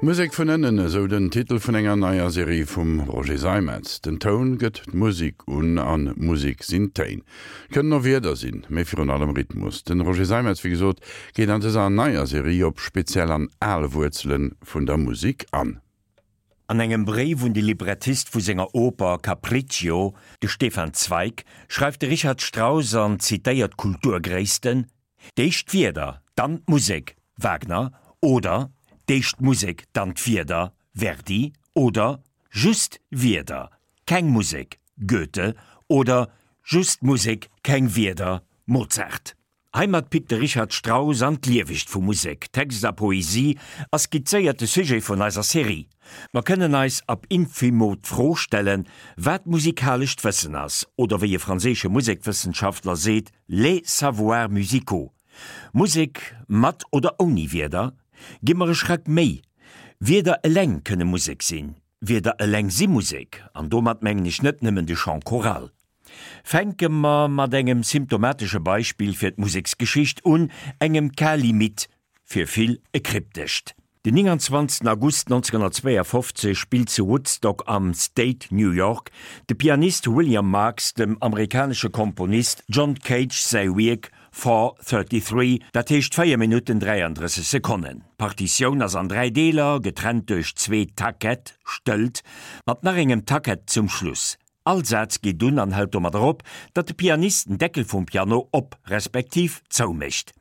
Musek vun ënnen, esou den Titel vun enger neier Serie vum Roger Seimetz. Den Toun gëtt d'Musek un an Musek sinn Téin. Kënnen och Wierder sinn, mee virun allem Rhythmus. Den Roger Seimetz, wéi gesot, geet an dëser neier Serie op speziell an al Wuerzele vun der Musek an. An engem Bréif un de Librettist vu senger Oper Capriccio, de Stefan Zweig, schreift de Richard Strauss an zitéiert Kulturgréissten, D'éischt d'Wierder, dann d'Musek, Wagner, oder d'éischt d'Musek, dann d'Wierder, Verdi, oder just Wierder, keng Musek, Goethe, oder just Musek, keng Wierder, Mozart. Heimat pickt de Richard Strauss an d'Liewegt vu Musek, Text a Poesie a skizzéiert de Sujet vun eiser Serie. Mer kënnen eis ab infimo d'Fro stellen, wat musikalescht Wëssen ass, oder wéi e franséische Musekwëssenschaftler seet, Les savoirs musicaux, Musek mat oder ouni Wierder, gi mer e Schrack méi. Wierder eleng kënne Musek sinn, Wierder eleng si Musek, an domat mengen ech net nëmmen de Chant choral. Fänke mer mat engem symptomatesche Beispill fir d'Museksgeschicht un, engem Cas limite, fir vill e kryptescht. Den 29 August 1952 spillt zu Woodstock am State New York de Pianist William Marks dem amerikanesche Komponist John Cage säi Wierk 4:33, dat heescht 4 Minutten 33 Sekonnen. D'Partitioun ass an 3 Deeler, getrennt duerch zwee Taquete, Stëllt, mat nach engem Taquet zum Schluss. All Saz geet un an hält domadder op, datt de Pianist den Deckel vum Piano op respektiv zou mécht.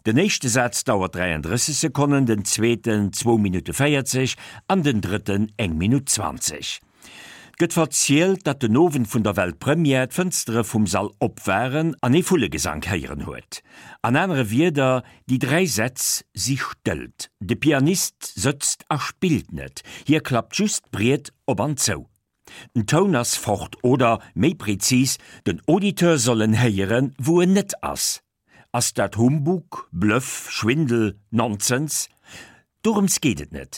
Den éischte Saz dauert 33 Sekonnen, den zweeten zwou Minutte 40 an den drëtten eng Minutt 20. 't gëtt verzielt, datt den Owend vun der Weltpremière d'Fënstere vum Sall op waren an ee Vullegesank héieren huet. An anere Wierder, déi dräi Sätz si stëllt. De Pianist sëtzt a spillt net, hie klappt just d'Briet op an zou. Den Toun ass fort oder, méi prezis, den Auditeur soll en héieren, wou en net ass. Ass dat Humbug, Bluff, Schwindel, Nonsens? Dorëms geet et net.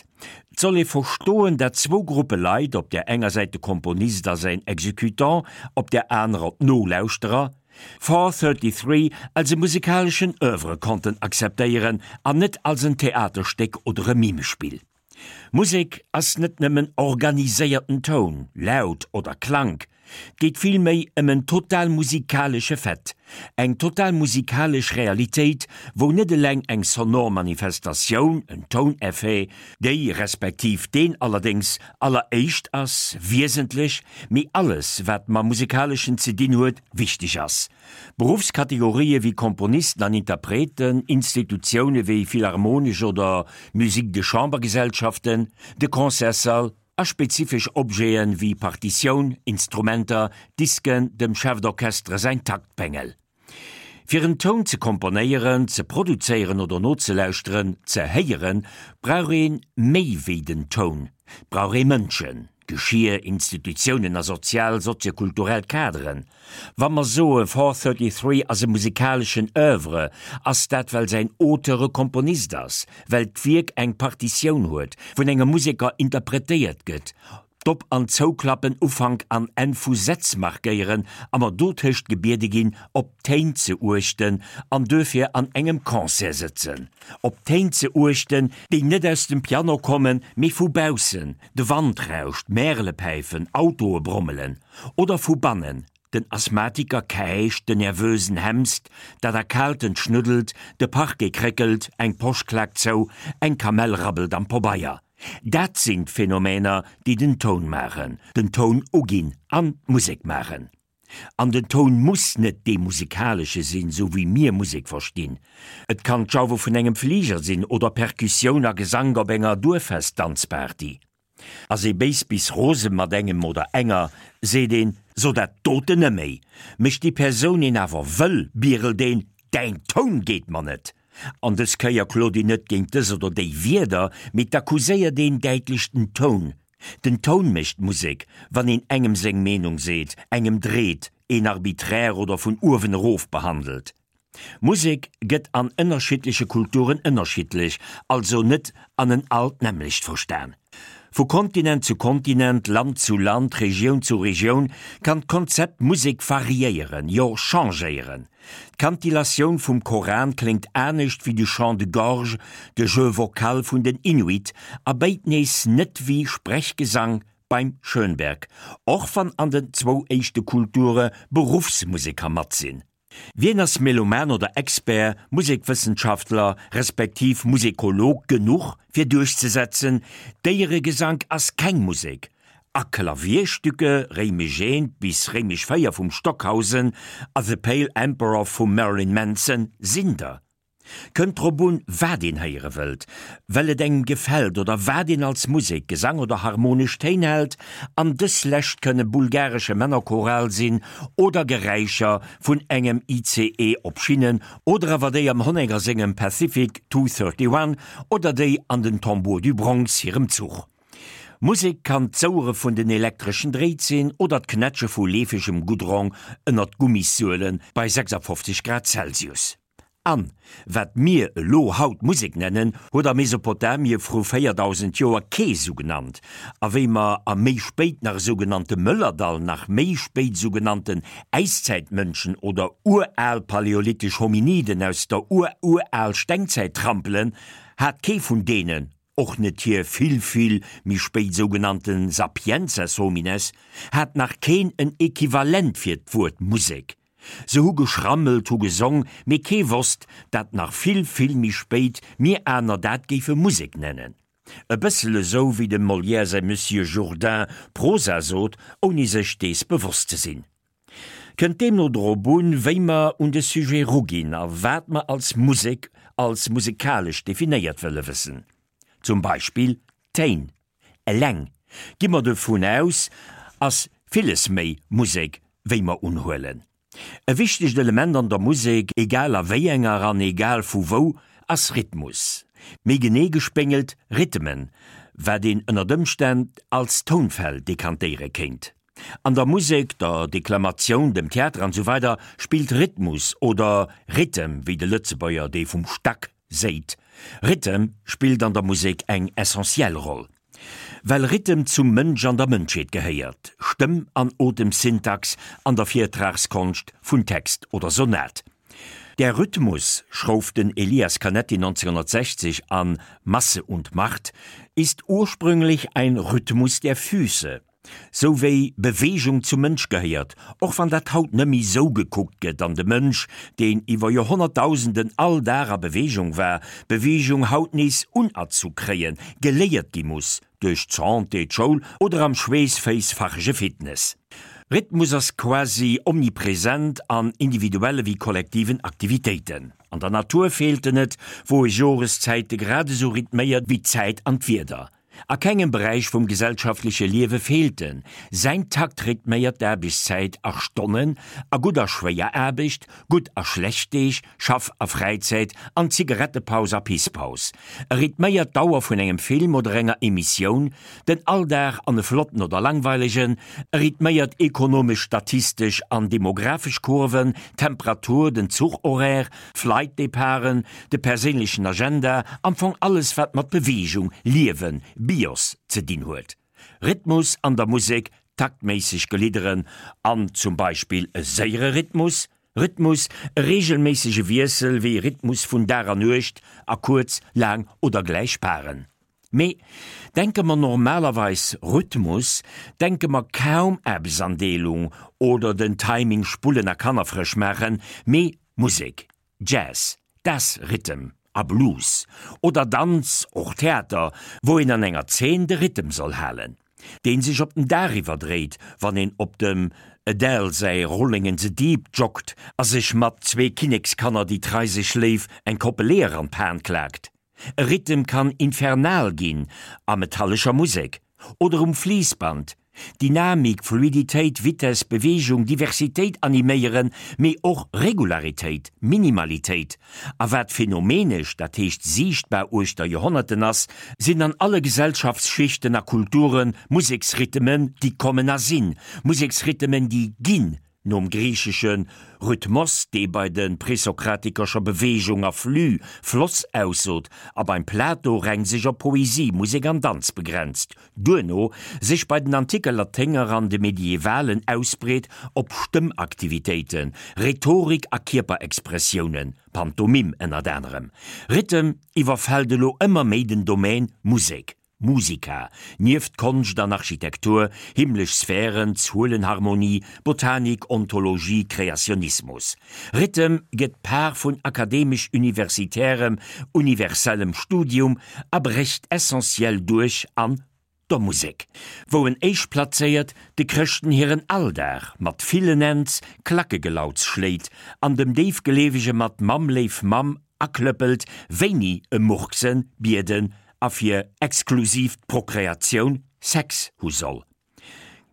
Et soll ee verstoen, dat zwou Gruppe Leit, op där enger Säit de Komponist a säin Executant, op där anerer d'Nolauschterer, 4:33 als e musikaleschen Oeuvre konnten akzeptéieren an net als en Theaterstéck oder e Mimespill. Musek ass net nëmmen organiséierten Toun, Laut oder Klank, 't geet vill méi ëm en total musikalesche Fait, eng total musikalesch Realitéit, wou net eleng eng sonor Manifestatioun, en Touneffet, déi respektiv deen allerdéngs alleréischt ass, wiesentlech, mee alles wat mam Musikaleschen ze dinn huet, wichteg ass. Beruffskategorië wéi Komponisten an Interpreten, Institutioune wéi Philharmonesch oder Musique de Chambre-Gesellschaften, de Concertssall a spezifesch Objete wéi Partitioun, Instrumenter, Disken, dem Chef d'Orchestre säin Taktbengel. Fir en Toun ze komponéieren, ze produzéieren oder nozelauschteren, ze héieren, brauch ee méi wéi den Toun, 't brauch ee Mënschen, Geschir, Institutiounen a sozial, soziokulturell Kaderen. Wa mer soe 4:33 ass e musikaleschen Oeuvre, ass dat well säin Auteur e Komponist ass, well d'Wierk eng Partitioun huet, vun engem Museker interpretéiert gëtt, d'Op an Zouklappen Ufank an Enn vu Sätz markéieren a mer dotëscht gebiede ginn, op d'Téin ze uechten an duerfir an engem Concert sëtzen, op d'Téin ze uechten, déi net aus dem Piano kommen, mee vu baussen, de Wand rauscht, Märele päifen, Autoe brommelen, oder vu bannen, den Asthmatiker käicht, den Nervösen hemst, dat Erkaaltent schnuddelt, de Parquet kréckelt, eng Posch klaakt zou, eng Kamell rabbelt am Pobeier. Dat sinn d'Phänomener, déi den Toun maachen, den Toun uginn an d'Musek maachen. An den Toun muss net dee musikalesche sinn, sou wéi mir Musek verstinn. Et kann d'Jauwe vun engem Fliger sinn oder Perkussioun a Gesank op enger Duerffest-Danzparty. Ass ee béis bis rose mat engem oder enger, seet een, So dat doten neméi! Mécht déi Persoun een awer wëll, bierelt een, Däin Toun geet mer net! An dës Kéier klot een net géint dës oder déi Wierder, mee 't accuséiert een däitlech den Toun. Den Toun mécht d'Musek, wann een engem seng Meenung seet, engem dreet, een arbiträr oder vun uewen erof behandelt. Musek gëtt an ënnerschiddleche Kulturen ënnerschiddlech, also net an en all d'nämmlecht verstan. Vu Kontinent zu Kontinent, Land zu Land, Regioun zu Regioun kann d'Konzept Musek variéieren, jo changéieren. D'Kantillatioun vum Koran kléngt anescht wéi de Chant de gorge, de Jeu vocal vun den Inuit, a béid nees net wéi Sprechgesang beim Schönberg, och wann an den zwou éischte Kulture Beruffsmuseker mat sinn. Wien ass Meloman oder Expert, Musekwëssenschaftler respektiv Musekolog genuch fir duerchzesetzen, Déieregesank ass keng Musek a Klavierstücke Réimech I bis Réimech IV vum Stockhausen a The Pale Emperor vum Marilyn Manson sinn der? Kënnt drop un, wat een héiere wëllt, well et engem gefält oder wat een als Musek, Gesang oder harmonesch Téin hält, an dës lescht kënne bulgaresche Männerchoral sinn oder Geräischer vun engem ICE op Schinnen oder awer déi am Honegger sengem Pacific 231 oder déi an den Tambours du Bronx hirem Zuch. Musek kann d'Souere vun den elektreschen Dréit sinn oder d'Knätsche vu leefegem Goudron ënnert Gummissuele bei 56 Grad Celsius. An, wat mir elo haut Musek nennen, huet a Mesopotamie vru 4000 Joer kee sou genannt. A wéi mer a méi spéit nach sougenannte Mëllerdall, nach méi spéit sougenannten Äiszäitmënschen oder ural paläolithisch Hominiden aus der ur-ural Stengzäit trampelen, hat kee vun deenen, och net hir vill, vill méi spéit sougenannte Sapiences homines, hat nach keen en Equivalent fir d'Wuert Musek. Se hu geschrammelt, hu gesong, mee kee wosst, dat nach vill, vill méi spéit mir aner dat géife Musek nennen. E bëssel esou wéi dem Molière säi Monsieur Jourdain Prosa sot, ouni sech dees bewosst ze sinn. Kënnt deemno drop un, wéi mer un de Sujet ruginn a wat mer als Musek, als musekalesch definéiert wëlle wëssen. Zum Beispill Téin. Eleng, gi mer dovun aus, ass villes méi Musek wéi mer unhuelen. E wichtegt Element an der Musek, egal a wéi enger an egal vu wou, ass Rhythmus. Méi genee gespéngelt Rhythmen, wat een ënnert Ëmstänn als Tounfäll dekantéiere kéint. An der Musek, der Deklamatioun, dem Theater an esou weider spillt Rhythmus oder Rhythm, wéi de Lëtzebuerger dee vum Stack séit. Rhythm spillt an der Musek eng essentiell Roll. Well Rhythm zum Mënsch an der Mënschheet gehéiert, Stëmm an Otemsyntax an der Virtragskonscht vun Text oder Sonat. Der Rhythmus, schrouf den Elias Canetti 1960 an Masse und Macht, ist ursprünglich ein Rhythmus der Füße. Sou wéi Beweegung zum Mënsch gehéiert, och wann dat haut nëmmi sou gekuckt gëtt an de Mënsch, deen iwwer Joerhonnertdausenden all Dag a Beweegung war, Beweegung haut nees unerzu kréien, geléiert gi muss, duerch d'Santé, d'Schoul oder am schweessféissfachege Fitness. Rhythmus ass quasi omnipresent an individuelle wéi kollektiven Aktivitéiten. An der Natur feelt en net, wou e Joreszäite grad esou rhythméiert wéi d'Zäit an d'Wieder. A kengem Beräich vum gesellschaftleche Liewe feelt en. Säin Takt rhythméiert d'Aarbechtszäit a Stonnen, a gutt a schwéier Aarbecht, gutt a schlecht Deeg, Schaff a Fräizäit, an Zigarettepaus a Pisspaus. E rhythméiert d'Dauer vun engem Film oder enger Emissioun, den Alldag an e flotten oder langweilegen, e rhythméiert ekonomesch, statistesch an demographesch Kurven, d'Temperatur, den Zuchhoraire, Flightdeparten, de perséinlechen Agenda, am Fong alles wat mat Beweegung, Liewen, Bios ze dinn huet. Rhythmus an der Musek, taktméisseg Gelidderen an zum Beispill e séiere Rhythmus, Rhythmus, e reegelméissege Wiessel wéi Rhythmus vun Dag a Nuecht a kuerz, laang oder gläich Paren. Mee denke mer normalerweis Rhythmus, denke mer kaum Aarbechtsandeelung oder den Timing spullen a Kanner frësch maachen, mee Musek, Jazz, das Rhythm a Blues oder Danz, och Theater, wou een an enger Zeen de Rhythm soll halen, deen sech op den Dag iwwerdréit, wann een op dem Adele säi Rolling in the Deep joggt a sech mat zwee Kinnekskanner déi trei sech léif eng Koppel Eeër an d'Pan klaakt. E Rhythm kann infernal ginn, a metallescher Musek oder um Fliissband. Dynamik, Fluiditéit, Vitess, Beweegung, Diversitéit animéieren, mee och Regularitéit, Minimalitéit. A wat phänomenesch, dat heescht siichtbar uechter Joerhonnerten ass, sinn an alle Gesellschaftsschichten a Kulture Museksrhythmen, déi kommen a sinn, Museksrhythmen, déi ginn. Nom griichesche Rhythmos, dee bei de Presokratiker scho Beweegung a Flux, Floss, aussot a beim Plato reng sech op Poesie, Musek an Danz begrenzt, duerno sech bei den anticke Laténger an de Medievalen ausbreet op Stëmmaktivitéiten, Rhetorik a Kierperexpressiounen, Pantomim ënnert anerem. Rhythm iwwerfält elo ëmmer méi den Domaine Musek. Musica, nieft Konscht an Architektur, himmlesch Sphären, Zuelenharmonie, Botanik, Ontologie, Kreationismus. Rhythm gëtt Par vun akademesch-universitärem, universellem Studium a brécht essentiell duerch an der Musek, wou en éischtplazéiert de Chrëschten hiren Alldag mat villen Ends Klackegelauds schléit an dem Déifgleewege mat Mamm léif Mamm aklëppelt, wéini e murksen, bieden a fir exklusiv d'Prokreatioun Sex hu soll.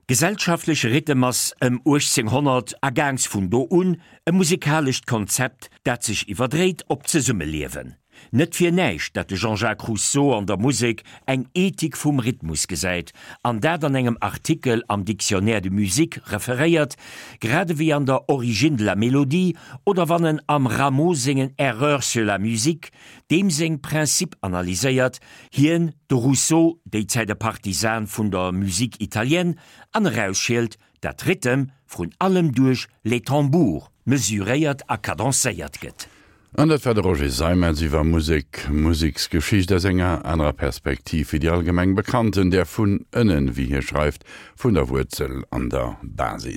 Gesellschaftleche Rhythm ass ëm 1800 a gaangs vun do un e musikalescht Konzept, dat sech iwwerdréit op d'Zesummeliewen. Net fir näischt, dat de Jean-Jacques Rousseau an der Musek eng Ethik vum Rhythmus gesäit an dat an engem Artikel am Dictionnaire de musique referéiert, grad ewéi an der Origine de la mélodie oder wann en am Rameau sengen Erreurs sur la musique deem seng Principes analyséiert, hien, de Rousseau, déi Zäit e Partisan vun der Musique italienne, an erausschielt, dat Rhythm vrun allem duerch les tambours mesuréiert a cadencéiert gëtt. An dat war de Roger Seimetz iwwer Musek, Museksgeschicht aus enger anerer Perspektiv wéi déi allgemeng bekannten, där vun ënnen, wéi hie schreift, vun der Wuerzel an der Basis.